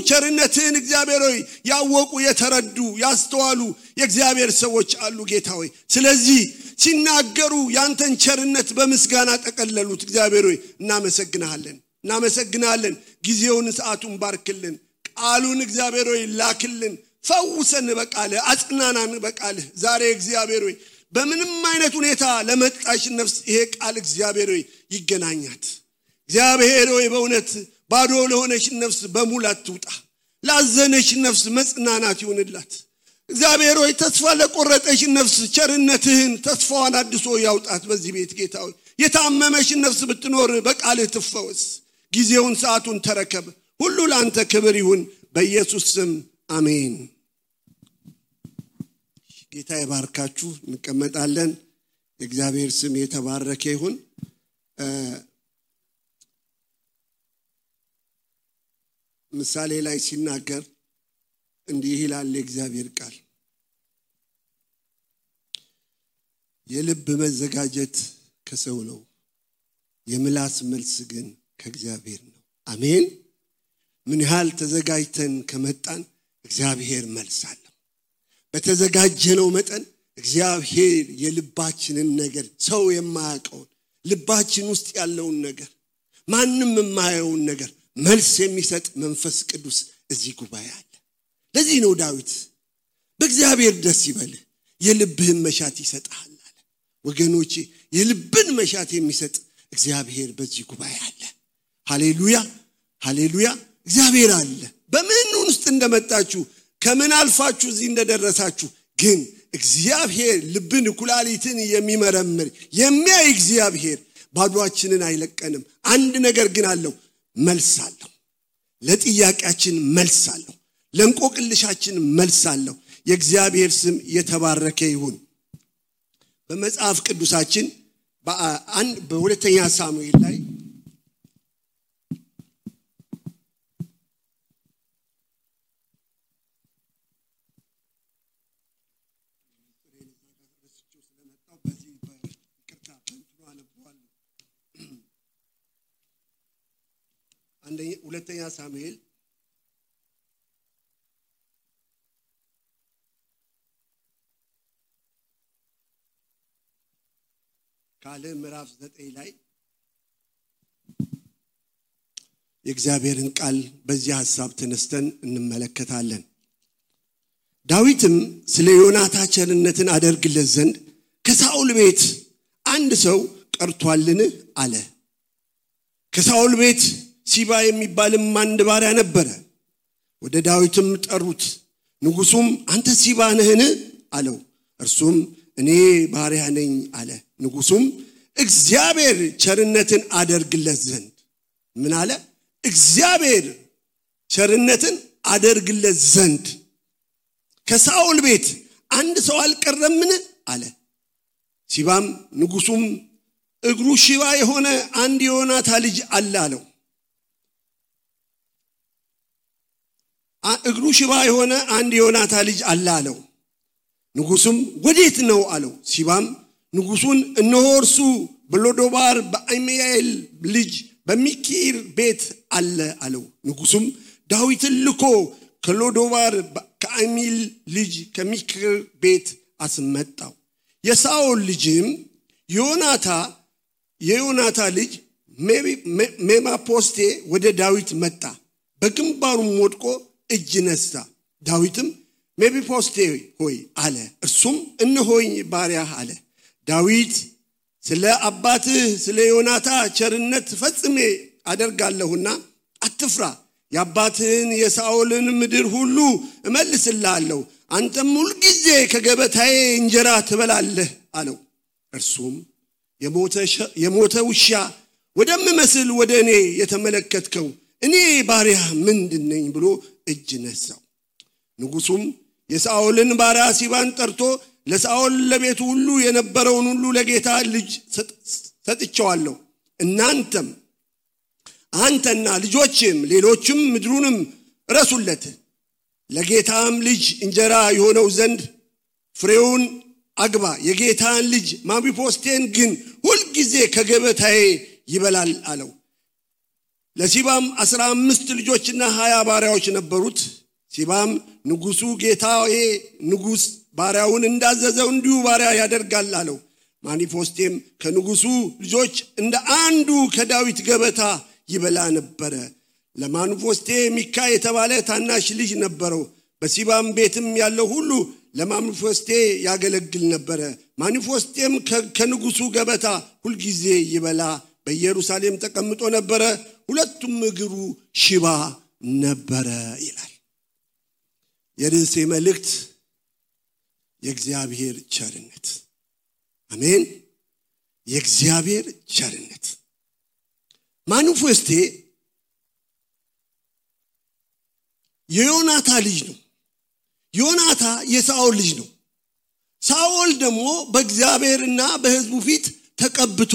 ቸርነትህን እግዚአብሔር ሆይ ያወቁ የተረዱ ያስተዋሉ የእግዚአብሔር ሰዎች አሉ ጌታ ሆይ ስለዚህ ሲናገሩ ያንተን ቸርነት በምስጋና ተቀለሉት እግዚአብሔር ሆይ እናመሰግናለን ጊዜውን ሰዓቱን ባርክልን ቃሉን እግዚአብሔር ሆይ ላክልን ፈውሰን በቃልህ አጽናናን በቃልህ ዛሬ እግዚአብሔር ሆይ በምንም አይነት ሁኔታ ለመጣሽ ነፍስ ይሄ ቃል እግዚአብሔር ሆይ ይገናኛት እግዚአብሔር ሆይ በእውነት ባዶ ለሆነሽ ነፍስ በሙላት ትውጣ ላዘነሽ ነፍስ መጽናናት ይሁንላት እግዚአብሔር ሆይ ተስፋ ለቆረጠሽ ነፍስ ቸርነትህን ተስፋዋን አድሶ ያውጣት በዚህ ቤት ጌታ ሆይ የታመመሽ ነፍስ ብትኖር በቃልህ ትፈወስ ጊዜውን ሰዓቱን ተረከብ ሁሉ ላንተ ክብር ይሁን በኢየሱስ ስም አሜን ጌታ ይባርካችሁ እንቀመጣለን የእግዚአብሔር ስም የተባረከ ይሁን ምሳሌ ላይ ሲናገር እንዲህ ይላል የእግዚአብሔር ቃል የልብ መዘጋጀት ከሰው ነው የምላስ መልስ ግን ከእግዚአብሔር ነው አሜን ምን ያህል ተዘጋጅተን ከመጣን እግዚአብሔር መልስ አለው በተዘጋጀነው መጠን እግዚአብሔር የልባችንን ነገር ሰው የማያውቀው ልባችን ውስጥ ያለውን ነገር ማንንም የማያየውን ነገር መልስ የሚሰጥ መንፈስ ቅዱስ እዚህ ጉባኤ አለ ለዚህ ነው ዳዊት በእግዚአብሔር ደስ ይበልህ የልብህን መሻት ይሰጣል አለ ወገኖቼ የልብን መሻት የሚሰጥ እግዚአብሔር በዚህ ጉባኤ አለ ሃሌሉያ እግዚአብሔር አለ በምን ውስጥ እንደመጣችሁ ከምን አልፋችሁ እዚህ እንደደረሳችሁ ግን እግዚአብሔር ልብን ኩላሊትን የሚመረምር የሚያይ እግዚአብሔር ባዶአችንን አይለቀንም አንድ ነገር ግን አለው መልስ አለው ለጥያቄያችን መልስ አለው ለንቆቅልሻችን መልስ አለው የእግዚአብሔር ስም የተባረከ ይሁን በመጽሐፍ ቅዱሳችን በሁለተኛ ሳሙኤል ላይ ሁለተኛ ሳሙኤል ካለ ምዕራፍ 9 ላይ የእግዚአብሔርን ቃል በዚህ ሐሳብ ተነስተን እንመለከታለን ዳዊትም ስለ ዮናታን ቸርነትን አደርግለት ዘንድ ከሳኦል ቤት አንድ ሰው ቀርቷልን አለ ከሳኦል ቤት ሲባ የሚባልም አንድ ባሪያ ነበረ ወደ ዳዊትም ጠሩት ንጉሱም አንተ ሲባ ነህን አለው እርሱም እኔ ባሪያ ነኝ አለ ንጉሱም እግዚአብሔር ቸርነትን አደርግለት ዘንድ ምን አለ እግዚአብሔር ቸርነትን አደርግለት ዘንድ ከሳኦል ቤት አንድ ሰው አልቀረምን አለ ሲባም ንጉሱም እግሩ ሽባ የሆነ አንድ ዮናታን ልጅ አለ አለው እግሩ ሽባ የሆነ አንድ ዮናታን ልጅ አለ አለው ንጉሱም ወዴት ነው አለው ሲባም ንጉሱን እነሆ እርሱ በሎዶባር በአይሜኤል ልጅ በሚኪር ቤት አለ አለው ንጉሱም ዳዊትን ልኮ ከሎዶባር ከአይሜኤል ልጅ ከሚኪር ቤት አስመጣው የሳኦል ልጅም የዮናታን ልጅ ሜምፊቦስቴ ወደ ዳዊት መጣ በግንባሩም ወድቆ እጅ ነሳ ዳዊትም ሜምፊቦስቴ ሆይ አለ እርሱም እነሆኝ ባሪያህ አለ ዳዊት ስለ አባትህ ስለ ዮናታን ቸርነት ፈጽሜ አደርጋለሁና አትፍራ የአባትህን የሳኦልን ምድር ሁሉ እመልስልሃለሁ አንተም ሁሉ ጊዜ ከገበታዬ እንጀራ ትበላለህ አለው እርሱም የሞተ ውሻ ወደምመስል ወደ እኔ የተመለከትከው እኔ ባሪያ ምንድነኝ ብሎ እጅ ነሳው ንጉሱም የሳኦልን ባሪያ ሲባን ጠርቶ ለሳኦል ለቤቱ ሁሉ የነበረውን ሁሉ ለጌታ ልጅ ሰጥቻለሁ እናንተም አንተና ልጆችም ሌሎችም ምድሩንም ረሱለት ለጌታም ልጅ እንጀራ የሆነው ዘንድ ፍሬውን አግባ የጌታን ልጅ ሜምፊቦስቴን ግን ሁሉ ጊዜ ከገበታዬ ይበላል አለው ለሲባም 15 ልጆችና 20 ባሪያዎች ነበሩት ሲባም ንጉሱ ጌታዬ ንጉስ ባሪያውን እንዳዘዘው እንዲሁ ባሪያ ያደርጋል አለው ማኒፎስቴም ከንጉሱ ልጆች እንደ አንዱ ከዳዊት ገበታ ይበላ ነበር ለማኒፎስቴ ሚካ የተባለ ታናሽ ልጅ ነበረው በሲባም ቤትም ያለው ሁሉ ለማኒፎስቴ ያገለግል ነበር ማኒፎስቴም ከንጉሱ ገበታ ሁሉ ጊዜ ይበላ በኢየሩሳሌም ተቀምጦ ነበር ሁለቱም እግሩ ሽባ ነበር ይላል የርዕሴ መልእክት የእግዚአብሔር ቸርነት አሜን የእግዚአብሔር ቸርነት ማኒፎስቴ የዮናታ ልጅ ነው ዮናታ የሳኦል ልጅ ነው ሳኦል ደግሞ በእግዚአብሔርና በሕዝቡ ፊት ተቀብቶ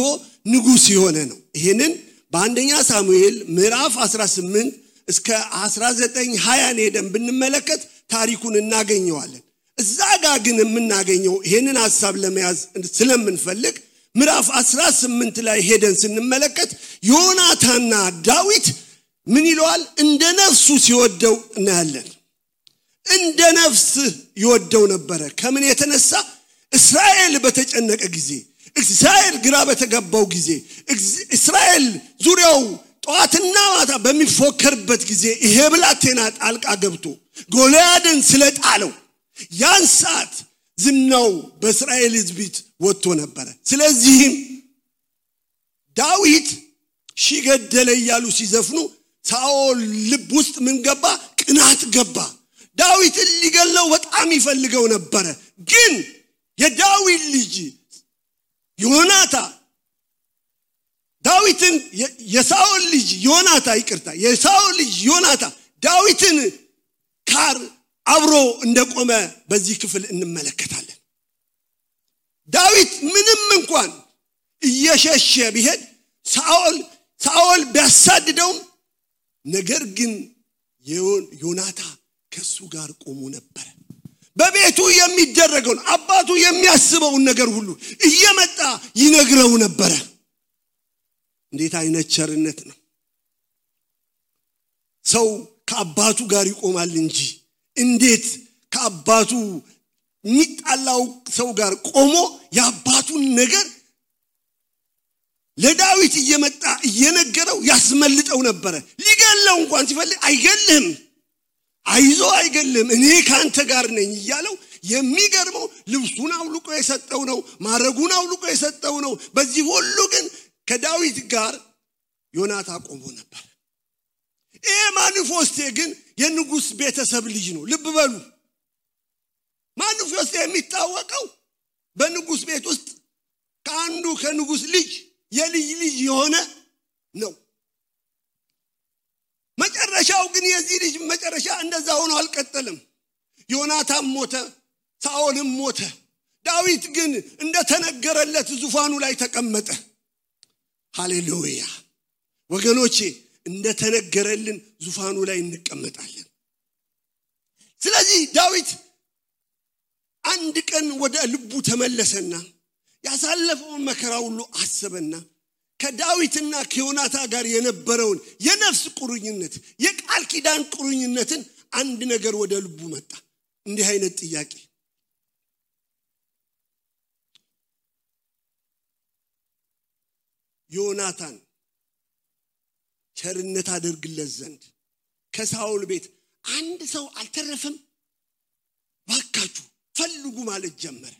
ንጉስ የሆነ ነው ይሄንን በአንደኛ ሳሙኤል ምዕራፍ 18 እስከ 19:20 ሄደን ብንመለከት ታሪኩን እናገኘዋለን እዛ ጋር ግን የምናገኘው ይሄንን ሐሳብ ለመያዝ ስለምንፈልግ ምዕራፍ 18 ላይ ሄደን ስንመለከት ዮናታና ዳዊት ምን ይሏል እንደ ነፍሱ ሲወደው እናያለን እንደ ነፍስ ይወደው ነበር ከምን የተነሳ እስራኤል በተጨነቀ ጊዜ እስራኤል ግራ በተገባው ጊዜ እስራኤል ዙሪያው ጧትና ማታ በሚፎከርበት ጊዜ ይሄ ብላቴና ጣልቃ ገብቶ ጎልያድን ስለጣለው ያን ሰዓት ዝናው በእስራኤል ሕዝብ ወጥቶ ነበር ስለዚህ ዳዊት ሺገደለ ይያሉ ሲዘፍኑ ሳኦል ልብ ውስጥ ምን ገባ ቅናት ገባ ዳዊት ሊገለው በጣም ይፈልገው ነበር ግን የዳዊት ልጅ ዮናታ ዳዊትን የሳኦል ልጅ ዮናታ ይቅርታ የሳኦል ልጅ ዮናታ ዳዊትን ካር አብሮ እንደቆመ በዚህ ክፍል እንመለከታለን ዳዊት ምንም እንኳን እየሸሸ ቢሄድ ሳኦል ቢያሳድደው ነገር ግን ዮናታ ከሱ ጋር ቆሞ ነበር በቤቱ የሚደረገው አባቱ የሚያስበው ነገር ሁሉ እየመጣ ይነግረው ነበር እንዴት አይነት ቸርነት ነው ሰው ከአባቱ ጋር ይቆማል እንጂ እንዴት ከአባቱ ሚጣላው ሰው ጋር ቆሞ ያባቱን ነገር ለዳዊት እየመጣ እየነገረው ያስመልጠው ነበር ሊገለው እንኳን ሲፈልግ አይገልህም አይዞ አይገልህም እኔ ካንተ ጋር ነኝ ይያለው የሚገርመው ልብሱን አውልቆ የሰጠው ነው ማረጉን አውልቆ የሰጠው ነው በዚህ ሁሉ ግን ከዳዊት ጋር ዮናታ ቆሞ ነበር ማኒፎስቴ ግን የንጉስ ቤተሰብ ልጅ ነው ልብ በሉ ማኒፎስቴ የሚታወቀው በንጉስ ቤት ውስጥ ከአንዱ ከንጉስ ልጅ የልጅ ልጅ የሆነ ነው መጨረሻው ግን የዚህ ልጅ መጨረሻ እንደዛ ሆኖ አልቀጠለም ዮናታም ሞተ ሳኦልም ሞተ ዳዊት ግን እንደተነገረለት ዙፋኑ ላይ ተቀመጠ ሃሌሉያ ወገኖቼ እንደተነገረልን ዙፋኑ ላይ እንቀመጣለን ስለዚህ ዳዊት አንድ ቀን ወደ ልቡ ተመለሰና ያሳለፈውን መከራ ሁሉ አሰበና ከዳዊትና ከዮናታ ጋር የነበረውን የነፍስ ቁርኝነት የቃል ኪዳን ቁርኝነትን አንድ ነገር ወደ ልቡ መጣ እንዲህ አይነት ጥያቄ ዮናታን ቸርነት አድርግለት ዘንድ ከሳኦል ቤት አንድ ሰው አልተረፈም ባካችሁ ፈልጉ ማለት ጀመረ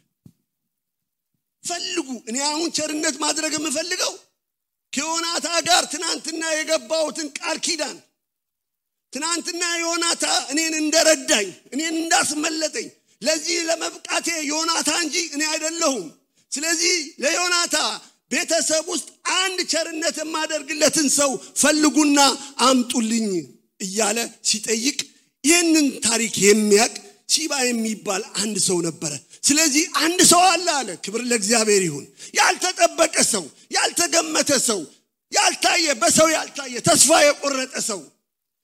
ፈልጉ እኔ አሁን ቸርነት ማድረግ የምፈልገው ከዮናታ ጋር ትናንትና የገባውትን ቃል ኪዳን ትናንትና ዮናታ እኔን እንደረዳኝ እኔን እንዳስመለጠኝ ለዚህ ለመብቃቴ ዮናታ እንጂ እኔ አይደለሁም ስለዚህ ለዮናታ ቤተሰብ ውስጥ አንድ ቸርነት የማደርግለትን ሰው ፈልጉና አምጡልኝ እያለ ሲጠይቅ ይህንን ታሪክ የሚያቅ ሲባ የሚባል አንድ ሰው ነበር ስለዚህ አንድ ሰው አለ ክብር ለእግዚአብሔር ይሁን ያልተጠበቀ ሰው ያልተገመተ ሰው ያልታየ በሰው ያልታየ ተስፋ የቆረጠ ሰው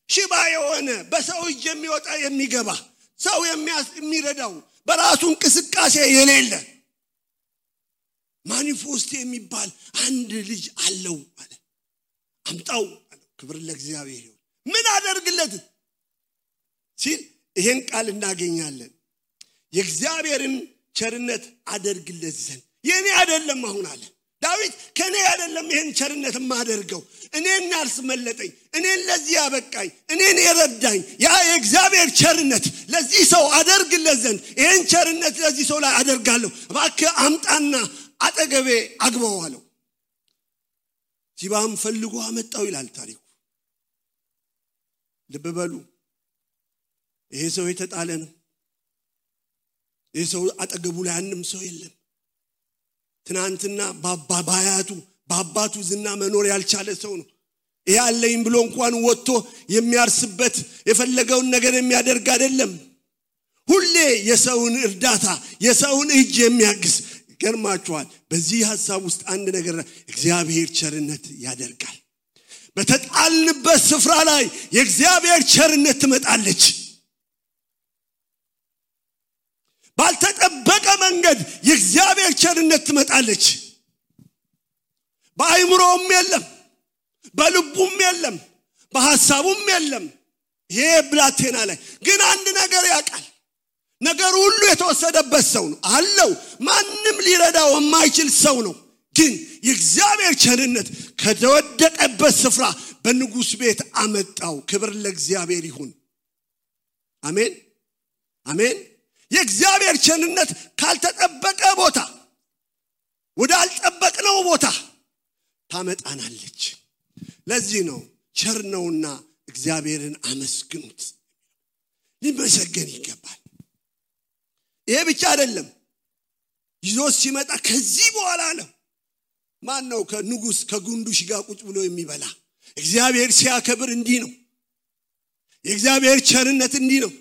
ሽባ የሆነ በሰው እጅ የሚወጣ የሚገባ ሰው የሚረዳው በራሱ እንቅስቃሴ የሌለ ማኒፎስቴ የሚባል አንድ ልጅ አለው አለ አምጣው ክብር ለእግዚአብሔር ይሁን። ምን አደርግለት ሲል ይሄን ቃል እናገኛለን። የእግዚአብሔርን ቸርነት አደርግለት ዘንድ የኔ አይደለም አሁን አለ ዳዊት ከኔ አይደለም ይሄን ቸርነት ማደርገው እኔን ያስመለጠኝ እኔን ለዚህ ያበቃኝ እኔን የረዳኝ ያ የእግዚአብሔር ቸርነት ለዚህ ሰው አደርግለት ዘንድ ይሄን ቸርነት ለዚህ ሰው ላይ አደርጋለሁ እባክህ አምጣና አጠገቤ አግባው አለው። ሲባም ፈልጎ አመጣው ይላል ታሪኩ። ልብ በሉ ይሄ ሰው የተጣለ ነው። ይሄ ሰው አጠገቡ ላይ አንድም ሰው የለም። ትናንትና በአባቱ ዝና መኖር ያልቻለ ሰው ነው። ይሄ አለኝ ብሎ እንኳን ወጥቶ የሚያርስበት የፈለገውን ነገር የሚያደርግ አይደለም። ሁሌ የሰውን እርዳታ የሰውን እጅ የሚያግዝ ገርማችኋል። በዚህ ሐሳብ ውስጥ አንድ ነገር እግዚአብሔር ቸርነት ያደርጋል። በተጣልንበት ስፍራ ላይ የእግዚአብሔር ቸርነት ትመጣለች። ባልተጠበቀ መንገድ የእግዚአብሔር ቸርነት ትመጣለች። በአይምሮም የለም በልቡም የለም በሐሳቡም የለም። ይሄ ብላቴና ላይ ግን አንድ ነገር ያውቃል። ነገር ሁሉ የተወሰደበት ሰው ነው አለው። ማንም ሊረዳው የማይችል ሰው ነው። ግን የእግዚአብሔር ቸርነት ከተወደቀበት ስፍራ በንጉስ ቤት አመጣው። ክብር ለእግዚአብሔር ይሁን። አሜን አሜን። የእግዚአብሔር ቸርነት ካልተጠበቀ ቦታ ወደ አልጠበቅነው ቦታ ታመጣናለች። ለዚህ ነው ቸር ነውና እግዚአብሔርን አመስግኑት። ሊመሰገን ይገባል። ይሄ ብቻ አይደለም። ይዞስ ሲመጣ ከዚህ በኋላ አለ ማን ነው ከንጉስ ከጉንዱሽ ጋር ቁጭ ብሎ የሚበላ? እግዚአብሔር ሲያከብር እንዲህ ነው። የእግዚአብሔር ቸርነት እንዲህ ነው።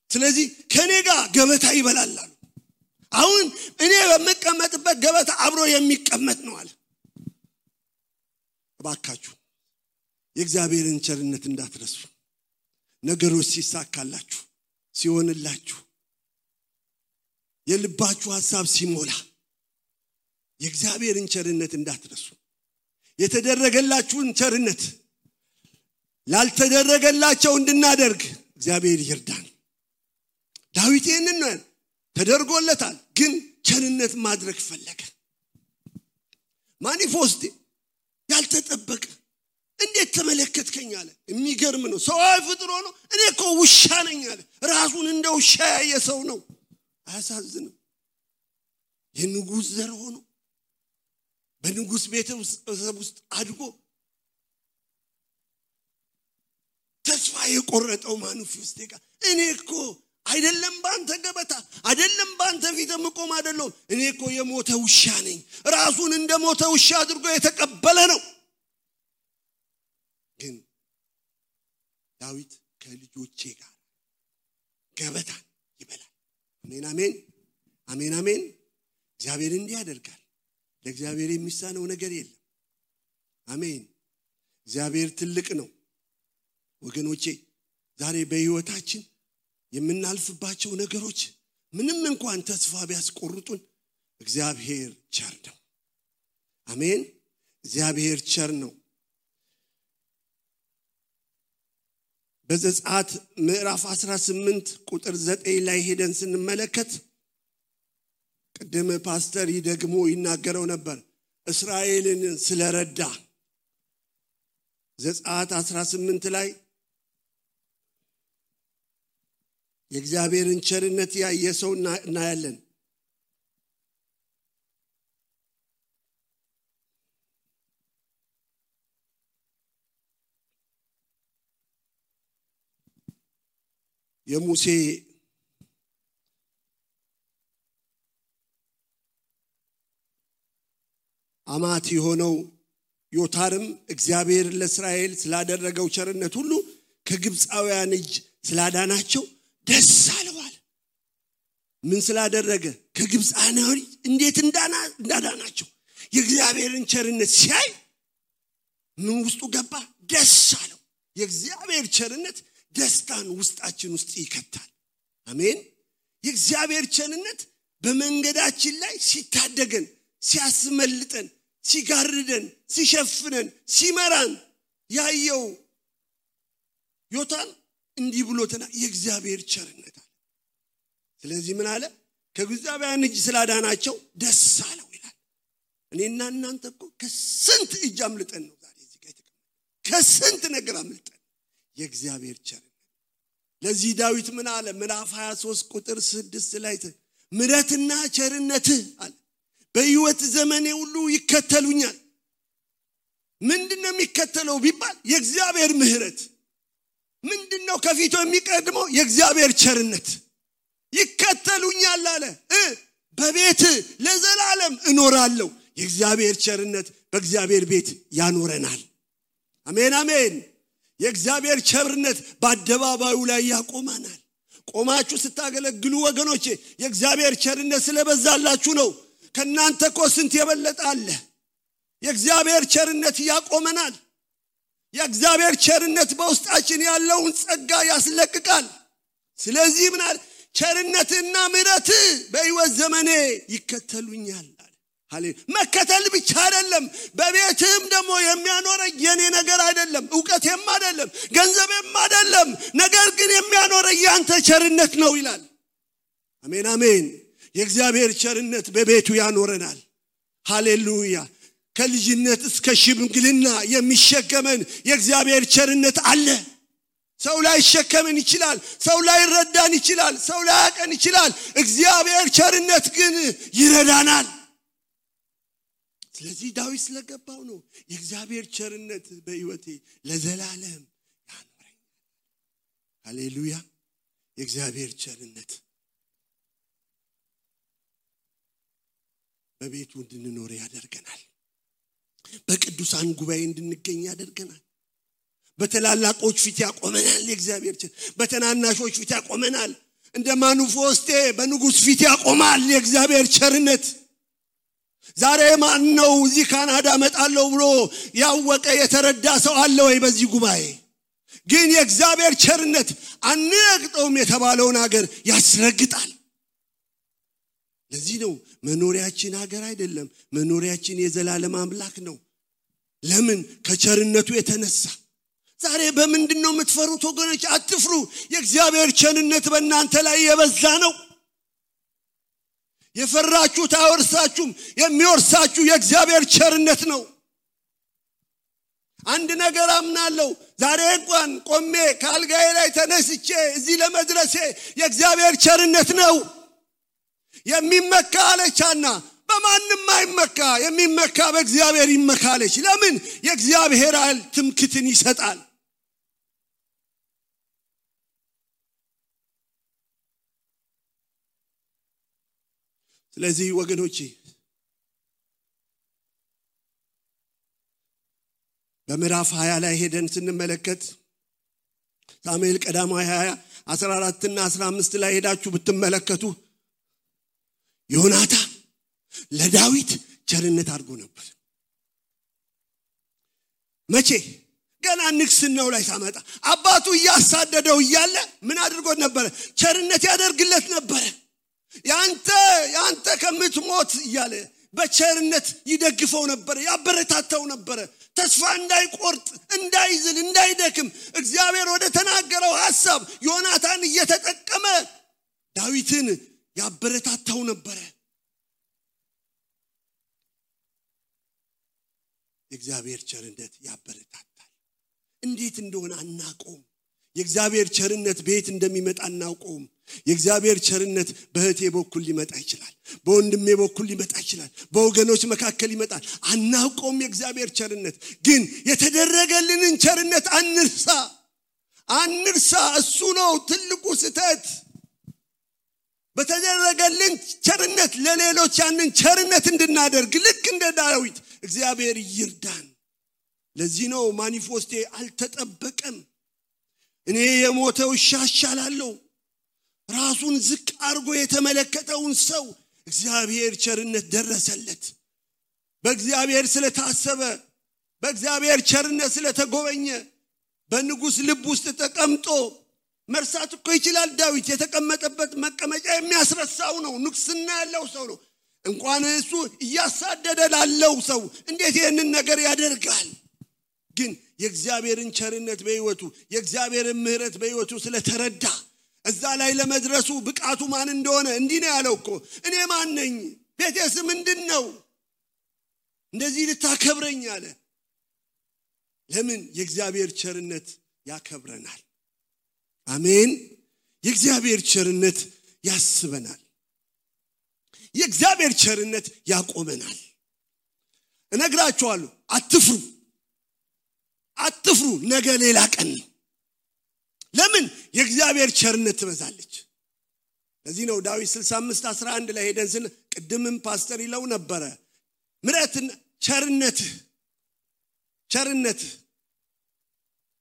ስለዚህ ከኔ ጋር ገበታ ይበላል አሉ። አሁን እኔ በመቀመጥበት ገበታ አብሮ የሚቀመጥ ነው አለ። እባካችሁ የእግዚአብሔርን ቸርነት እንዳትረሱ። ነገሮች ሲሳካላችሁ ሲሆንላችሁ የልባችሁ ሐሳብ ሲሞላ የእግዚአብሔርን ቸርነት እንዳትረሱ። የተደረገላችሁን ቸርነት ላልተደረገላቸው እንድናደርግ እግዚአብሔር ይርዳን። ዳዊት ይህንን ተደርጎለታል፣ ግን ቸርነት ማድረግ ፈለገ። ማኒፎስት ያልተጠበቀ እንዴት ተመለከትከኝ አለ። የሚገርም ነው። ሰው ፍጥሮ ነው። እኔ እኮ ውሻ ነኝ አለ። ራሱን እንደ ውሻ ያየ ሰው ነው። አያሳዝንም? የንጉስ ዘር ሆኖ በንጉስ ቤተሰብ ውስጥ አድጎ ተስፋ የቆረጠው ማኒፎስት ጋር እኔ እኮ አይደለም ባንተ ገበታ አይደለም ባንተ ፊት መቆም አይደለም እኔ እኮ የሞተ ውሻ ነኝ። ራሱን እንደ ሞተ ውሻ አድርጎ የተቀበለ ነው። ግን ዳዊት ከልጆቼ ጋር ገበታ ይበላል። አሜን አሜን አሜን አሜን። እግዚአብሔር እንዲህ ያደርጋል። ለእግዚአብሔር የሚሳነው ነገር የለም። አሜን። እግዚአብሔር ትልቅ ነው። ወገኖቼ ዛሬ በህይወታችን የምናልፍባቸው ነገሮች ምንም እንኳን ተስፋ ቢያስቆርጡን እግዚአብሔር ቸር ነው። አሜን። እግዚአብሔር ቸር ነው። በዘጸአት ምዕራፍ 18 ቁጥር 9 ላይ ሄደን ስንመለከት ቅድም ፓስተር ይደግሞ ይናገረው ነበር እስራኤልን ስለረዳ። ዘጸአት 18 ላይ የእግዚአብሔርን ቸርነት ያየ ሰው እናያለን። የሙሴ አማት የሆነው ዮታርም እግዚአብሔር ለእስራኤል ስላደረገው ቸርነት ሁሉ ከግብፃውያን እጅ ስላዳናቸው ደስ አለው አለ። ምን ስላደረገ? ከግብፃውያን እንዴት እንዳዳናቸው የእግዚአብሔርን ቸርነት ሲያይ ምን ውስጡ ገባ? ደስ አለው። የእግዚአብሔር ቸርነት ደስታን ውስጣችን ውስጥ ይከታል። አሜን። የእግዚአብሔር ቸርነት በመንገዳችን ላይ ሲታደገን ሲያስመልጠን ሲጋርደን ሲሸፍነን ሲመራን ያየው ዮታም እንዲህ ብሎተና የእግዚአብሔር ቸርነት አለ። ስለዚህ ምን አለ? ከግብፃውያን እጅ ስላዳናቸው ደስ አለው ይላል። እኔና እናንተ እኮ ከስንት እጅ አምልጠን ነው ዛሬ እዚህ ጋር የተቀመጥነው። ከስንት ነገር አምልጠን የእግዚአብሔር ቸርነት። ለዚህ ዳዊት ምን አለ? ምዕራፍ 23 ቁጥር 6 ላይ ምሕረትና ቸርነትህ አለ በሕይወት ዘመኔ ሁሉ ይከተሉኛል። ምንድነው የሚከተለው ቢባል የእግዚአብሔር ምሕረት። ምንድነው ከፊቱ የሚቀድመው? የእግዚአብሔር ቸርነት። ይከተሉኛል አለ። በቤት ለዘላለም እኖራለሁ። የእግዚአብሔር ቸርነት በእግዚአብሔር ቤት ያኖረናል። አሜን አሜን። የእግዚአብሔር ቸርነት በአደባባዩ ላይ ያቆማናል። ቆማችሁ ስታገለግሉ ወገኖቼ የእግዚአብሔር ቸርነት ስለበዛላችሁ ነው። ከናንተ እኮ ስንት የበለጠ አለ። የእግዚአብሔር ቸርነት ያቆመናል። የእግዚአብሔር ቸርነት በውስጣችን ያለውን ጸጋ ያስለቅቃል። ስለዚህ ምን አለ? ቸርነትና ምሕረት በሕይወት ዘመኔ ይከተሉኛል አለ። ሃሌሉያ። መከተል ብቻ አይደለም፣ በቤትም ደግሞ የሚያኖረኝ የኔ ነገር አይደለም፣ ዕውቀቴም አይደለም፣ ገንዘቤም አይደለም፣ ነገር ግን የሚያኖረኝ ያንተ ቸርነት ነው ይላል። አሜን አሜን። የእግዚአብሔር ቸርነት በቤቱ ያኖረናል። ሃሌሉያ። ከልጅነት እስከ ሽምግልና የሚሸከመን የእግዚአብሔር ቸርነት አለ። ሰው ላይ ሸከመን ይችላል፣ ሰው ላይ ረዳን ይችላል፣ ሰው ላይ ያቀን ይችላል። እግዚአብሔር ቸርነት ግን ይረዳናል። ስለዚህ ዳዊት ስለገባው ነው የእግዚአብሔር ቸርነት በሕይወቴ ለዘላለም ያኖረኛል። ሃሌሉያ። የእግዚአብሔር ቸርነት በቤቱ እንድንኖር ያደርገናል። በቅዱሳን ጉባኤ እንድንገኝ ያደርገናል። በተላላቆች ፊት ያቆመናል። የእግዚአብሔር ቸርነት በተናናሾች ፊት ያቆመናል። እንደ ማኑፎስቴ በንጉስ ፊት ያቆማል የእግዚአብሔር ቸርነት። ዛሬ ማን ነው እዚህ ካናዳ መጣለው ብሎ ያወቀ የተረዳ ሰው አለ ወይ በዚህ ጉባኤ? ግን የእግዚአብሔር ቸርነት አንረግጠውም የተባለውን ሀገር ያስረግጣል። ለዚህ ነው መኖሪያችን ሀገር አይደለም፣ መኖሪያችን የዘላለም አምላክ ነው። ለምን? ከቸርነቱ የተነሳ። ዛሬ በምንድነው የምትፈሩት ወገኖች? አትፍሩ። የእግዚአብሔር ቸርነት በእናንተ ላይ የበዛ ነው። የፈራችሁት አይወርሳችሁም፣ የሚወርሳችሁ የእግዚአብሔር ቸርነት ነው። አንድ ነገር አምናለሁ። ዛሬ እንኳን ቆሜ ካልጋዬ ላይ ተነስቼ እዚህ ለመድረሴ የእግዚአብሔር ቸርነት ነው። የሚመካ አለቻና በማንም አይመካ፣ የሚመካ በእግዚአብሔር ይመካለች። ለምን? የእግዚአብሔር ኃይል ትምክትን ይሰጣል። ስለዚህ ወገኖቼ በምዕራፍ 20 ላይ ሄደን ስንመለከት ሳሙኤል ቀዳማዊ 20 14 እና 15 ላይ ሄዳችሁ ብትመለከቱ ዮናታን ለዳዊት ቸርነት አድርጎ ነበር። መቼ? ገና ንግስናው ላይ ሳመጣ አባቱ ያሳደደው እያለ ምን አድርጎ ነበር? ቸርነት ያደርግለት ነበር። ያንተ ከምትሞት እያለ በቸርነት ይደግፈው ነበር፣ ያበረታታው ነበር። ተስፋ እንዳይቆርጥ፣ እንዳይዝል፣ እንዳይደክም እግዚአብሔር ወደ ተናገረው ሐሳብ ዮናታን እየተጠቀመ ዳዊትን ያበረታታው ነበር። የእግዚአብሔር ቸርነት ያበረታታል። እንዴት እንደሆነ አናውቀውም። የእግዚአብሔር ቸርነት ቤት እንደሚመጣ አናውቀውም። የእግዚአብሔር ቸርነት በእህቴ በኩል ሊመጣ ይችላል፣ በወንድሜ በኩል ሊመጣ ይችላል፣ በወገኖች መካከል ይመጣል። አናውቀውም የእግዚአብሔር ቸርነት። ግን የተደረገልንን ቸርነት አንርሳ። እሱ ነው ትልቁ ስህተት። በተደረገልን ቸርነት ለሌሎች ያንን ቸርነት እንድናደርግ ልክ እንደ ዳዊት እግዚአብሔር ይርዳን። ለዚህ ነው ማኒፌስቴ አልተጠበቀም። እኔ የሞተው ይሻሻላለሁ። ራሱን ዝቅ አድርጎ የተመለከተውን ሰው እግዚአብሔር ቸርነት ደረሰለት። በእግዚአብሔር ስለታሰበ፣ በእግዚአብሔር ቸርነት ስለተጎበኘ በንጉስ ልብ ውስጥ ተቀምጦ መርሳት እኮ ይችላል። ዳዊት የተቀመጠበት መቀመጫ የሚያስረሳው ነው። ንግስና ያለው ሰው ነው። እንኳን እሱ ያሳደደ ላለው ሰው እንዴት ይሄንን ነገር ያደርጋል? ግን የእግዚአብሔርን ቸርነት በህይወቱ የእግዚአብሔርን ምህረት በህይወቱ ስለተረዳ እዛ ላይ ለመድረሱ ብቃቱ ማን እንደሆነ እንዲህ ነው ያለው እኮ እኔ ማን ነኝ? ቤቴስ ምንድነው? እንደዚህ ልታከብረኝ አለ። ለምን? የእግዚአብሔር ቸርነት ያከብረናል። አሜን። የእግዚአብሔር ቸርነት ያስበናል። የእግዚአብሔር ቸርነት ያቆመናል። እነግራችኋለሁ፣ አትፍሩ፣ ነገ ሌላ ቀን። ለምን? የእግዚአብሔር ቸርነት ትበዛለች። ለዚህ ነው ዳዊት 65:11 ላይ ሄደን ቅድምም ፓስተር ይለው ነበረ ምሕረትና ቸርነት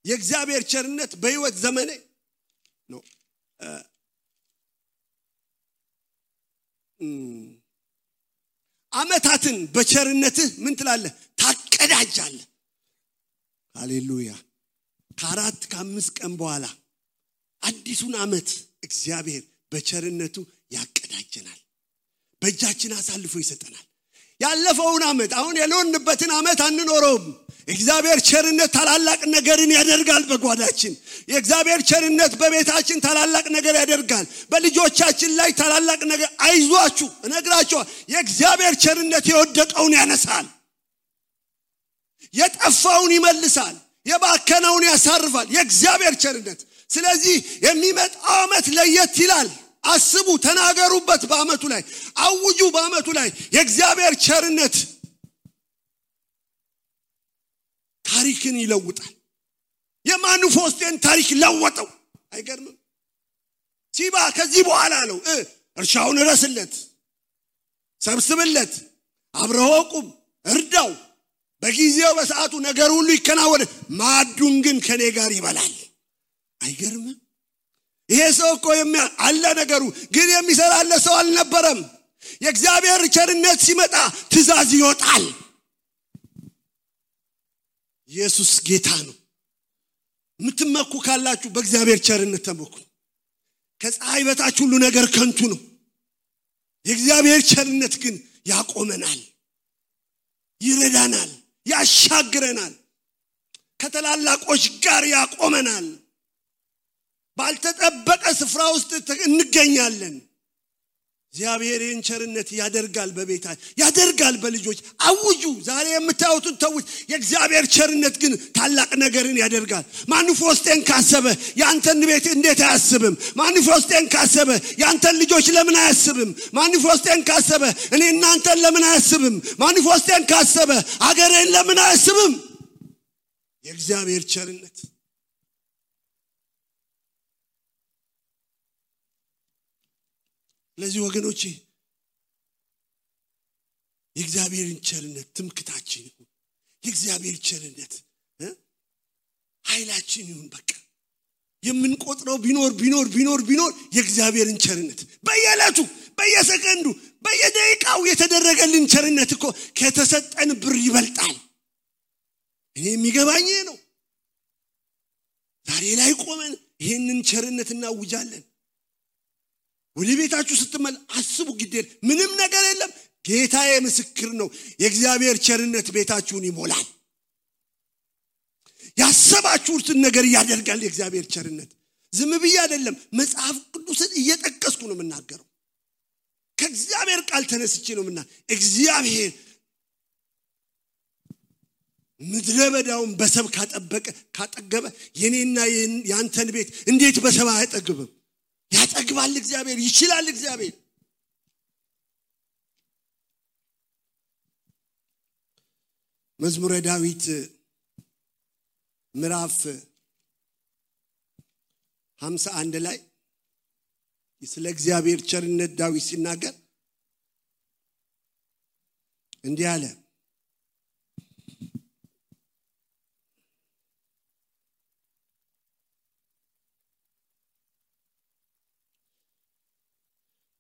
የእግዚአብሔር ቸርነት በህይወት ዘመኔ ነው አመታትን በቸርነትህ ምን ትላለህ? ታቀዳጃለህ። ሃሌሉያ። ከአራት ከአምስት ቀን በኋላ አዲሱን አመት እግዚአብሔር በቸርነቱ ያቀዳጀናል። በእጃችን አሳልፎ ይሰጠናል። ያለፈውን አመት አሁን ያለንበትን አመት አንኖረውም። እግዚአብሔር ቸርነት ታላላቅ ነገርን ያደርጋል በጓዳችን። የእግዚአብሔር ቸርነት በቤታችን ታላላቅ ነገር ያደርጋል። በልጆቻችን ላይ ታላላቅ ነገር አይዟችሁ እነግራችኋለሁ። የእግዚአብሔር ቸርነት የወደቀውን ያነሳል፣ የጠፋውን ይመልሳል፣ የባከነውን ያሳርፋል። የእግዚአብሔር ቸርነት። ስለዚህ የሚመጣው አመት ለየት ይላል። አስቡ፣ ተናገሩበት። በአመቱ ላይ አውጁ። በአመቱ ላይ የእግዚአብሔር ቸርነት ታሪክን ይለውጣል። የማኑፎስቴን ታሪክ ለወጠው። አይገርምም? ሲባ ከዚህ በኋላ ነው እርሻውን ረስለት፣ ሰብስብለት፣ አብረው ቁም፣ እርዳው፣ በጊዜው በሰዓቱ ነገር ሁሉ ይከናወን፣ ማዱን ግን ከኔ ጋር ይበላል። አይገርምም? ይሄ ሰው እኮ አለ ነገሩ፣ ግን የሚሰራለት ሰው አልነበረም። የእግዚአብሔር ቸርነት ሲመጣ ትእዛዝ ይወጣል። ኢየሱስ ጌታ ነው። ምትመኩ ካላችሁ በእግዚአብሔር ቸርነት ተመኩ። ከፀሐይ በታች ሁሉ ነገር ከንቱ ነው። የእግዚአብሔር ቸርነት ግን ያቆመናል፣ ይረዳናል፣ ያሻግረናል፣ ከተላላቆች ጋር ያቆመናል። ባልተጠበቀ ስፍራ ውስጥ እንገኛለን። እግዚአብሔርን ቸርነት ያደርጋል፣ በቤታችን ያደርጋል፣ በልጆች አውጁ። ዛሬ የምታዩትን ተውት። የእግዚአብሔር ቸርነት ግን ታላቅ ነገርን ያደርጋል። ማኑፎስቴን ካሰበ ያንተን ቤት እንዴት አያስብም? ማኑፎስቴን ካሰበ ያንተን ልጆች ለምን አያስብም? ማኑፎስቴን ካሰበ እኔ እናንተን ለምን አያስብም? ማኑፎስቴን ካሰበ አገሬን ለምን አያስብም? የእግዚአብሔር ቸርነት። ለዚህ ወገኖቼ የእግዚአብሔርን ቸርነት ትምክታችን ይሁን። የእግዚአብሔር ቸርነት ኃይላችን ይሁን። በቃ የምንቆጥረው ቢኖር የእግዚአብሔርን ቸርነት በየዕለቱ በየሰከንዱ በየደቂቃው የተደረገልን ቸርነት እኮ ከተሰጠን ብር ይበልጣል። እኔ የሚገባኝ ነው። ዛሬ ላይ ቆመን ይሄንን ቸርነት እናውጃለን። ወደ ቤታችሁ ስትመል አስቡ። ግዴል ምንም ነገር የለም። ጌታዬ ምስክር ነው። የእግዚአብሔር ቸርነት ቤታችሁን ይሞላል። ያሰባችሁትን ነገር ያደርጋል የእግዚአብሔር ቸርነት። ዝም ብዬ አይደለም፣ መጽሐፍ ቅዱስን እየጠቀስኩ ነው የምናገረው። ከእግዚአብሔር ቃል ተነስቼ ነው እግዚአብሔር ምድረ በዳውን በሰብ ካጠገበ የኔና ያንተን ቤት እንዴት በሰብ አይጠግብም? ያጠግባል እግዚአብሔር፣ ይችላል እግዚአብሔር። መዝሙረ ዳዊት ምዕራፍ 51 ላይ ስለ እግዚአብሔር ቸርነት ዳዊት ሲናገር እንዲህ አለ።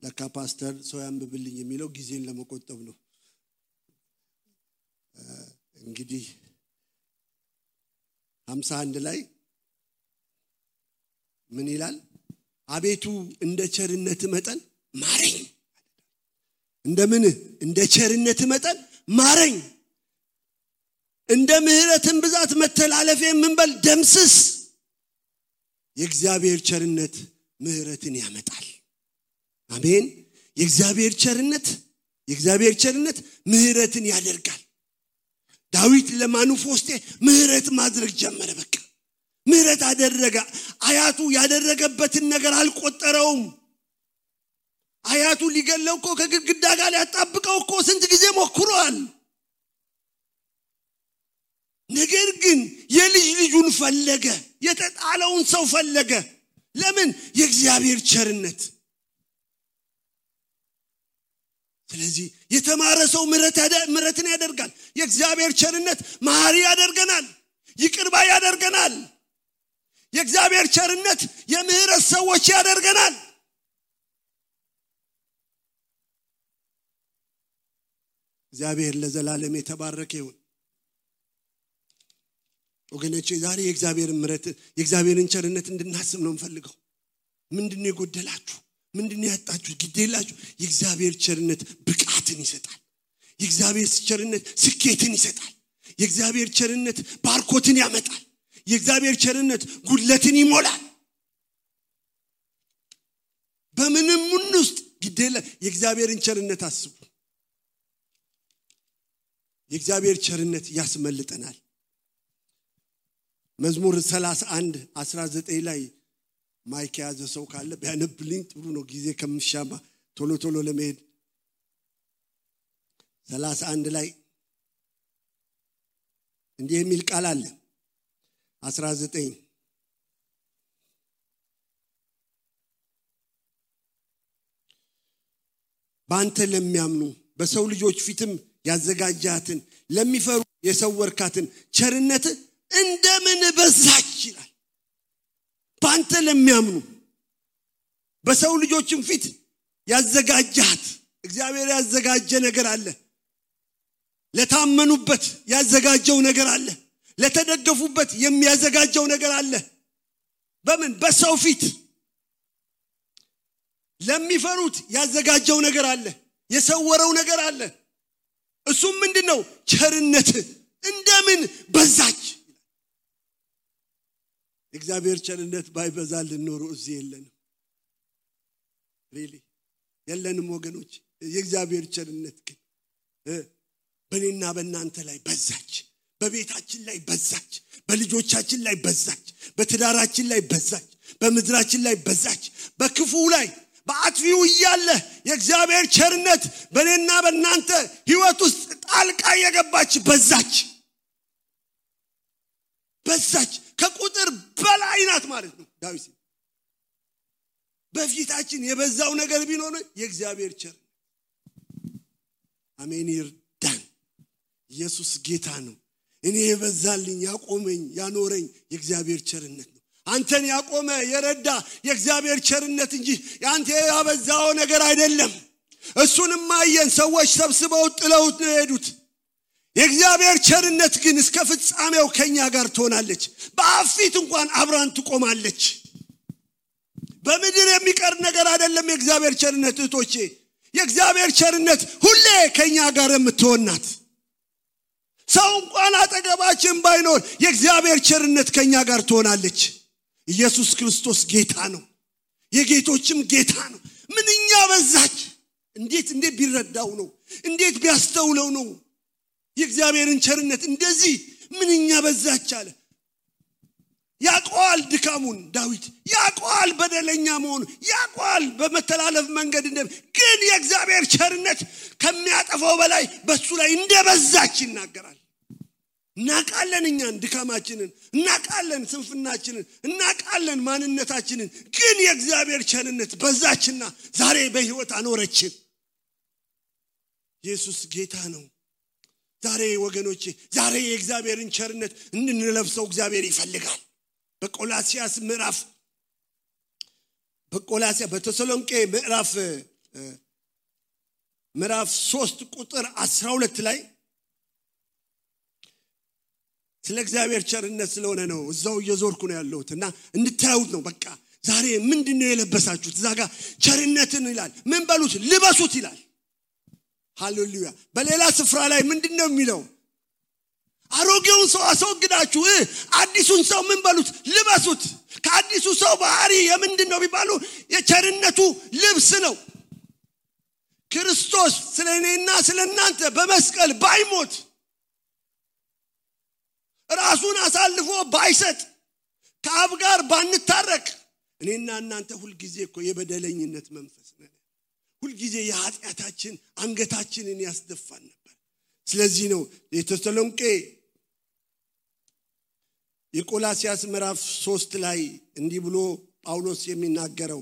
ለካ ፓስተር ሰው ያንብብልኝ የሚለው ጊዜን ለመቆጠብ ነው። እንግዲህ 51 ላይ ምን ይላል? አቤቱ እንደ ቸርነት መጠን ማረኝ፣ እንደምን እንደ ቸርነት መጠን ማረኝ እንደ ምህረትን ብዛት መተላለፌን ምን በል ደምስስ የእግዚአብሔር ቸርነት ምህረትን ያመጣል አሜን የእግዚአብሔር ቸርነት ምህረትን ያደርጋል ዳዊት ለማኑፎስቴ ምህረት ማድረግ ጀመረ በቃ ምህረት አደረገ አያቱ ያደረገበትን ነገር አልቆጠረውም አያቱ ሊገለው እኮ ከግድግዳ ጋር ያጣብቀው እኮ ስንት ጊዜ ሞክሯል ነገር ግን የልጅ ልጁን ፈለገ የተጣለውን ሰው ፈለገ ለምን የእግዚአብሔር ቸርነት ስለዚህ የተማረ ሰው ምህረትን ያደርጋል የእግዚአብሔር ቸርነት መሐሪ ያደርገናል ይቅር ባይ ያደርገናል የእግዚአብሔር ቸርነት የምህረት ሰዎች ያደርገናል እግዚአብሔር ለዘላለም የተባረከ ይሁን ወገኖቼ ዛሬ የእግዚአብሔርን ቸርነት እንድናስብ ነው እንፈልገው ምንድነው የጎደላችሁ ምንድነው ያጣችሁ ግዴላችሁ የእግዚአብሔር ቸርነት ብቃትን ይሰጣል የእግዚአብሔር ቸርነት ስኬትን ይሰጣል የእግዚአብሔር ቸርነት ባርኮትን ያመጣል የእግዚአብሔር ቸርነት ጉድለትን ይሞላል በምንም ውስጥ ግዴላ የእግዚአብሔርን ቸርነት አስቡ የእግዚአብሔር ቸርነት ያስመልጠናል መዝሙር 31:19 ላይ ማይክ ያዘ ሰው ካለ ቢያነብልኝ ጥሩ ነው ጊዜ ከምሻማ ቶሎ ለመሄድ 31 ላይ እንዲህ የሚል ቃል አለ 19 ባንተ ለሚያምኑ በሰው ልጆች ፊትም ያዘጋጃትን ለሚፈሩ የሰወርካትን ቸርነት እንደምን በዛች ይላል ባንተ ለሚያምኑ በሰው ልጆችም ፊት ያዘጋጃት እግዚአብሔር ያዘጋጀ ነገር አለ ለታመኑበት ያዘጋጀው ነገር አለ ለተደገፉበት የሚያዘጋጀው ነገር አለ በምን በሰው ፊት ለሚፈሩት ያዘጋጀው ነገር አለ የሰወረው ነገር አለ እሱም ምንድነው ቸርነት እንደምን በዛች እግዚአብሔር ቸርነት ባይበዛልን ኖሮ እዚህ የለንም የለንም ወገኖች የእግዚአብሔር ቸርነት ግን በእኔና በእናንተ ላይ በዛች በቤታችን ላይ በዛች በልጆቻችን ላይ በዛች በትዳራችን ላይ በዛች በምድራችን ላይ በዛች በክፉ ላይ በአጥፊው ይያለ የእግዚአብሔር ቸርነት በእኔና በእናንተ ህይወት ውስጥ ጣልቃ የገባች በዛች ከቁጥር በላይ ናት ማለት ነው ዳዊት በፊታችን የበዛው ነገር ቢኖር የእግዚአብሔር ቸርነት አሜን ይርዳን ኢየሱስ ጌታ ነው እኔ የበዛልኝ ያቆመኝ ያኖረኝ የእግዚአብሔር ቸርነት ነው አንተን ያቆመ የረዳ የእግዚአብሔር ቸርነት እንጂ ያንተ ያበዛው ነገር አይደለም እሱንም ማየን ሰዎች ሰብስበው ጥለውት ነው የሄዱት የእግዚአብሔር ቸርነት ግን እስከ ፍጻሜው ከኛ ጋር ትሆናለች በአፊት እንኳን አብራን ትቆማለች በምድር የሚቀር ነገር አይደለም የእግዚአብሔር ቸርነት እህቶቼ የእግዚአብሔር ቸርነት ሁሌ ከኛ ጋር የምትሆናት ሰው እንኳን አጠገባችን ባይኖር የእግዚአብሔር ቸርነት ከኛ ጋር ትሆናለች ኢየሱስ ክርስቶስ ጌታ ነው የጌቶችም ጌታ ነው ምንኛ በዛች እንዴት ቢረዳው ነው እንዴት ቢያስተውለው ነው የእግዚአብሔርን ቸርነት እንደዚህ ምንኛ በዛች አለ ያቋል ድካሙን ዳዊት ያቋል በደለኛ መሆኑ ያቋል በመተላለፍ መንገድ ግን የእግዚአብሔር ቸርነት ከሚያጠፋው በላይ በሱ ላይ እንደበዛች ይናገራል እናቃለን እኛን ድካማችንን እናቃለን ስንፍናችንን እናቃለን ማንነታችንን ግን የእግዚአብሔር ቸርነት በዛችና ዛሬ በህይወት አኖረችን ኢየሱስ ጌታ ነው ዛሬ ወገኖቼ ዛሬ የእግዚአብሔርን ቸርነት እንድንለብሰው እግዚአብሔር ይፈልጋል በተሰሎንቄ ምዕራፍ 3 ቁጥር 12 ላይ ስለ እግዚአብሔር ቸርነት ስለሆነ ነው እዛው እየዞርኩ ነው ያለሁትና እንድታዩት ነው በቃ ዛሬ ምንድነው የለበሳችሁት ዛጋ ቸርነትን ይላል ምን በሉት ልበሱት ይላል ሃሌሉያ በሌላ ስፍራ ላይ ምንድነው የሚለው አሮጌውን ሰው አስወግዳችሁ አዲሱን ሰው ምን በሉት ልበሱት ከአዲሱ ሰው ባህሪ የምንድነው ቢባሉ የቸርነቱ ልብስ ነው ክርስቶስ ስለኔና ስለናንተ በመስቀል ባይሞት ራሱን አሳልፎ ባይሰጥ ከአብ ጋር ባንታረቅ እኔና እናንተ ሁሉ ጊዜ እኮ የበደለኝነት መንፈስ ነን ሁሉ ጊዜ የኃጢአታችን አንገታችንን ያስደፋን ነበር ስለዚህ ነው የተሰሎንቄ የቆላስያስ ምዕራፍ 3 ላይ እንዲህ ብሎ ጳውሎስ የሚናገረው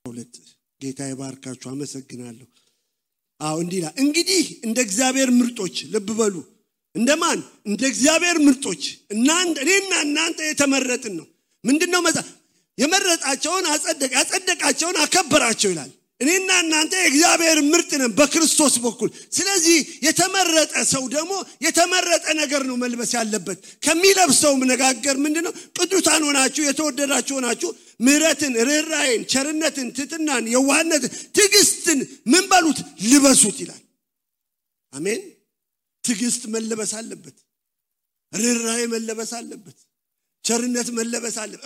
ሁለት ጌታ ይባርካችሁ አመሰግናለሁ እንዲላ እንግዲህ እንደ እግዚአብሔር ምርጦች ልብ በሉ እንደማን እንደ እግዚአብሔር ምርጦች እኔና እናንተ የተመረጥን ነው ምንድነው የመረጣቸውን ያጸደቃቸውን አከበራቸው ይላል እኔና እናንተ እግዚአብሔር ምርጥ ነን በክርስቶስ በኩል ስለዚህ የተመረጠ ሰው ደግሞ የተመረጠ ነገር ነው መልበስ ያለበት ከሚለብሰው መነጋገር ምንድነው ቅዱሳን ሆናችሁ የተወደዳችሁ ሆናችሁ ምህረትን ርህራሄን ቸርነትን ትትናን የዋህነትን ትዕግስትን ምን በሉት ልበሱት ይላል አሜን ትዕግስት መለበስ አለበት ርህራሄ መለበስ አለበት ቸርነት መለበስ አለበት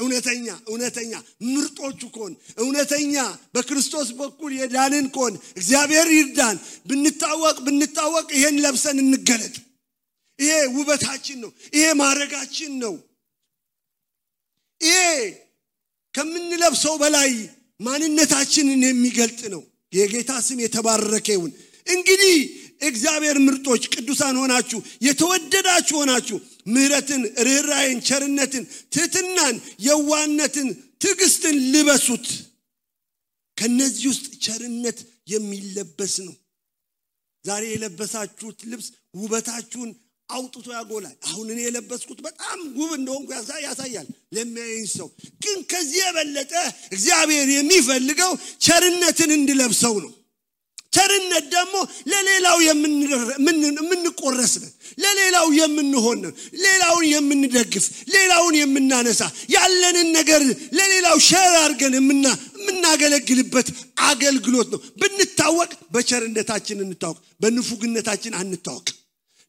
እውነተኛ ምርጦቹ ኮን እውነተኛ በክርስቶስ በኩል የዳንን ኮን እግዚአብሔር ይርዳን ብንታወቅ ይሄን ለብሰን እንገለጥ ይሄ ውበታችን ነው ይሄ ማረጋችን ነው ይሄ ከምንለብሰው በላይ ማንነታችንን የሚገልጥ ነው የጌታ ስም የተባረከ ይሁን እንግዲህ እግዚአብሔር ምርጦች ቅዱሳን ሆናችሁ የተወደዳችሁ ሆናችሁ ምህረትን ርህራሄን ቸርነትን ትህትናን የዋህነትን ትዕግስትን ልበሱት ከነዚህ ውስጥ ቸርነት የሚለበስ ነው ዛሬ የለበሳችሁት ልብስ ውበታችሁን አውጥቶ ያጎላል አሁን እኔ የለበስኩት በጣም ውብ እንደሆንኩ ያሳያል ለሚያየኝ ሰው ግን ከዚህ የበለጠ እግዚአብሔር የሚፈልገው ቸርነትን እንድለብሰው ነው ቸርነት ደግሞ ለሌላው የምንቆረስ ነን ለሌላው የምንሆን ነን ሌላውን የምንደግፍ ሌላውን የምናነሳ ያለንን ነገር ለሌላው ሼር አድርገን የምናገለግልበት አገልግሎት ነው ብንታወቅ በቸርነታችን እንታወቅ በንፉግነታችን አንታወቅ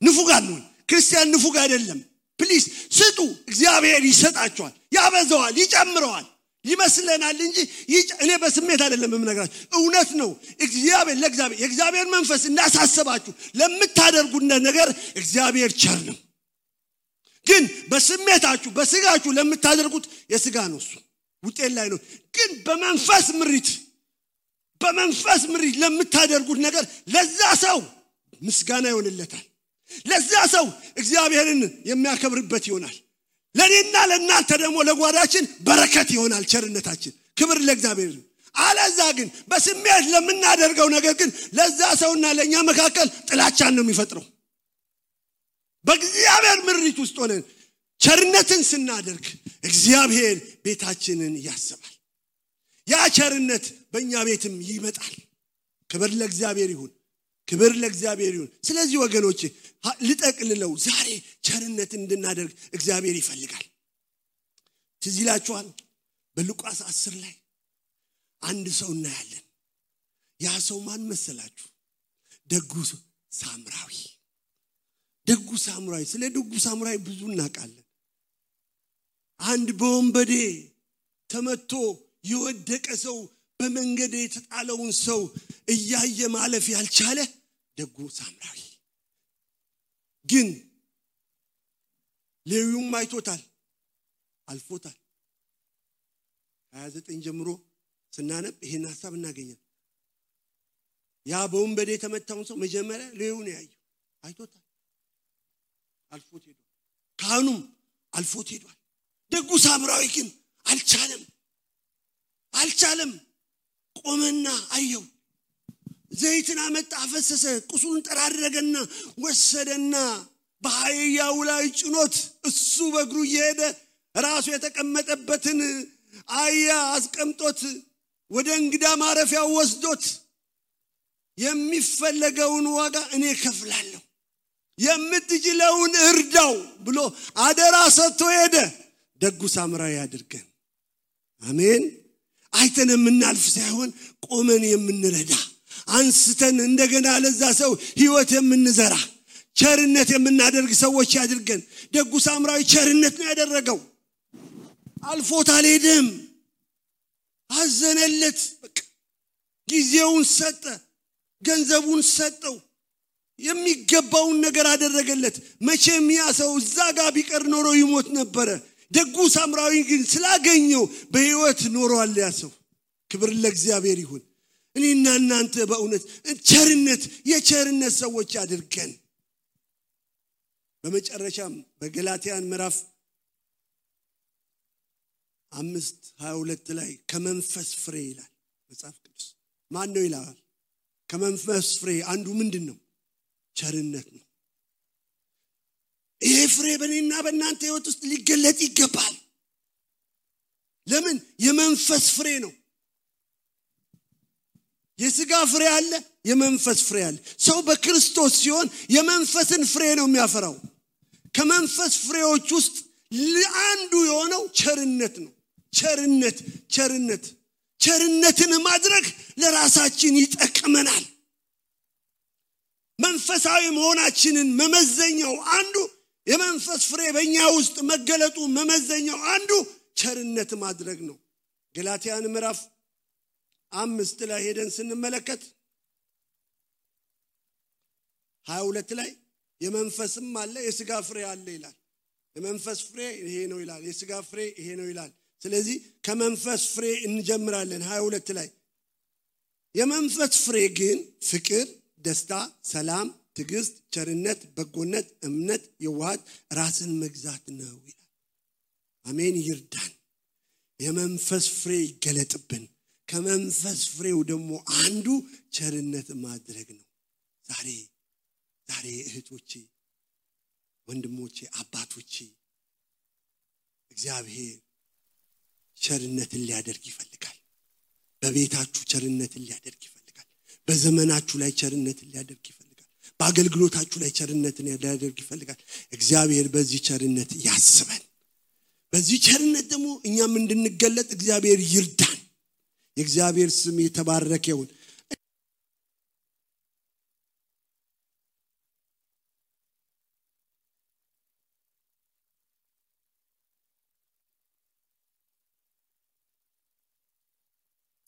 ንፉግ አንሁን ክርስቲያን ንፉግ አይደለም ፕሊዝ ስጡ እግዚአብሔር ይሰጣቸዋል ያበዛዋል ይጨምረዋል ይመስለናል እንጂ እኔ በስሜት አይደለም የምነግራችሁ እውነት ነው ለእግዚአብሔር የእግዚአብሔር መንፈስ እንዳሳሰባችሁ ለምታደርጉት ነገር እግዚአብሔር ቸር ነው ግን በስሜታችሁ በስጋችሁ ለምታደርጉት የስጋ ነው እሱ ውጤት ላይ ነው ግን በመንፈስ ምሪት ለምታደርጉት ነገር ለዛ ሰው ምስጋና ይሆንለታል ለዛ ሰው እግዚአብሔርን የሚያከብርበት ይሆናል ለኔና ለናንተ ደግሞ ለጓዳችን በረከት ይሆናል ቸርነታችን ክብር ለእግዚአብሔር አለዛ ግን በስሜት ለምናደርገው ነገር ግን ለዛ ሰውና ለኛ መካከል ጥላቻን ነው የሚፈጥረው በእግዚአብሔር ምሪት ውስጥ ሆነን ቸርነትን ስናደርግ እግዚአብሔር ቤታችንን ያስባል ያ ቸርነት በእኛ ቤትም ይመጣል ክብር ለእግዚአብሔር ይሁን ስለዚህ ወገኖቼ ልጠቅልለው ዛሬ ቸርነት እንድናደርግ እግዚአብሔር ይፈልጋል ትዝ ይላችኋል በሉቃስ 10 ላይ አንድ ሰው እናያለን ያ ሰው ማን መሰላችሁ ደጉ ሳምራዊ ስለ ደጉ ሳምራዊ ብዙ እናውቃለን አንድ በወንበዴ ተመቶ የወደቀ ሰው በመንገድ የተጣለውን ሰው እያየ ማለፍ ያልቻለ ደጉ ሳምራዊ ግን ሌዊውም አይቶታል አልፎታል 29 ጀምሮ ስናነብ ይሄን ሐሳብ እናገኛለን ያ በወንበዴ የተመታውን ሰው መጀመሪያ ሌዊው ነው ያየው አይቶታል አልፎት ሄዷል ካህኑም አልፎት ሄዷል ደጉ ሳምራዊ ግን አልቻለም ቆመና አየው ዘይትን አመጣ አፈሰሰ ቁስሉን ጠራረገና ወሰደና በአህያው ላይ ጭኖት እሱ በእግሩ እየሄደ ራሱ የተቀመጠበትን አህያ አስቀምጦት ወደ እንግዳ ማረፊያው ወስዶት የሚፈለገውን ዋጋ እኔ ከፍላለሁ የምትችለውን እርዳው ብሎ አደራ ሰጥቶ ሄደ ደጉ ሳምራዊ ያድርገን አሜን አይተን የምናልፍ ሳይሆን ቆመን የምንረዳ አንስተን እንደገና ለዛ ሰው ህይወት የምንዘራ ቸርነት የምናደርግ ሰዎች ያድርገን ደጉ ሳምራዊ ቸርነት ነው ያደረገው አልፎት አልሄደም አዘነለት ጊዜውን ሰጠ ገንዘቡን ሰጠው የሚገባውን ነገር አደረገለት መቼም ያ ሰው እዛ ጋር ቢቀር ኖሮ ይሞት ነበር ደጉ ሳምራዊ ግን ስላገኘው በህይወት ኖሯል ያ ሰው ክብር ለእግዚአብሔር ይሁን እኔና እናንተ በእውነት ቸርነት የቸርነት ሰዎች አድርገን በመጨረሻም በገላትያን ምዕራፍ 5:22 ላይ ከመንፈስ ፍሬ ይላል መጽሐፍ ቅዱስ ማን ነው ይላል ከመንፈስ ፍሬ አንዱ ምንድነው ቸርነት ነው ይሄ ፍሬ በእኔና በእናንተ ህይወት ውስጥ ሊገለጥ ይገባል ለምን የመንፈስ ፍሬ ነው የሥጋ ፍሬ አለ የመንፈስ ፍሬ አለ ሰው በክርስቶስ ሲሆን የመንፈስን ፍሬ ነው የሚያፈራው ከመንፈስ ፍሬዎች ውስጥ አንዱ የሆነው ቸርነት ነው ቸርነትን ማድረግ ለራሳችን ይጠቅመናል መንፈሳዊ መሆናችንን መመዘኛው አንዱ የመንፈስ ፍሬ በእኛ ውስጥ መገለጡ መመዘኛው አንዱ ቸርነት ማድረግ ነው ገላትያን ምዕራፍ 5 ላይ ሄደን ስንመለከት 22 ላይ የመንፈስም አለ የሥጋ ፍሬ አለ ይላል የመንፈስ ፍሬ ይሄ ነው ይላል የሥጋ ፍሬ ይሄ ነው ይላል ስለዚህ ከመንፈስ ፍሬ እንጀምራለን 22 ላይ የመንፈስ ፍሬ ግን ፍቅር ደስታ ሰላም ትዕግስት ቸርነት በጎነት እምነት የዋሃት ራስን መግዛት ነው ይላል አሜን ይርዳን የመንፈስ ፍሬ ይገለጥብን ከመንፈስ ፍሬው ደግሞ አንዱ ቸርነት ማድረግ ነው ዛሬ እህቶቼ ወንድሞቼ አባቶቼ እግዚአብሔር ቸርነትን ሊያደርግ ይፈልጋል በቤታችሁ ቸርነትን ሊያደርግ ይፈልጋል በዘመናችሁ ላይ ቸርነትን ሊያደርግ ይፈልጋል በአገልግሎታችሁ ላይ ቸርነትን ሊያደርግ ይፈልጋል እግዚአብሔር በዚህ ቸርነት ያስበን በዚህ ቸርነት ደግሞ እኛም እንድንገለጥ እግዚአብሔር ይርዳን የእግዚአብሔር ስም የተባረከ ይሁን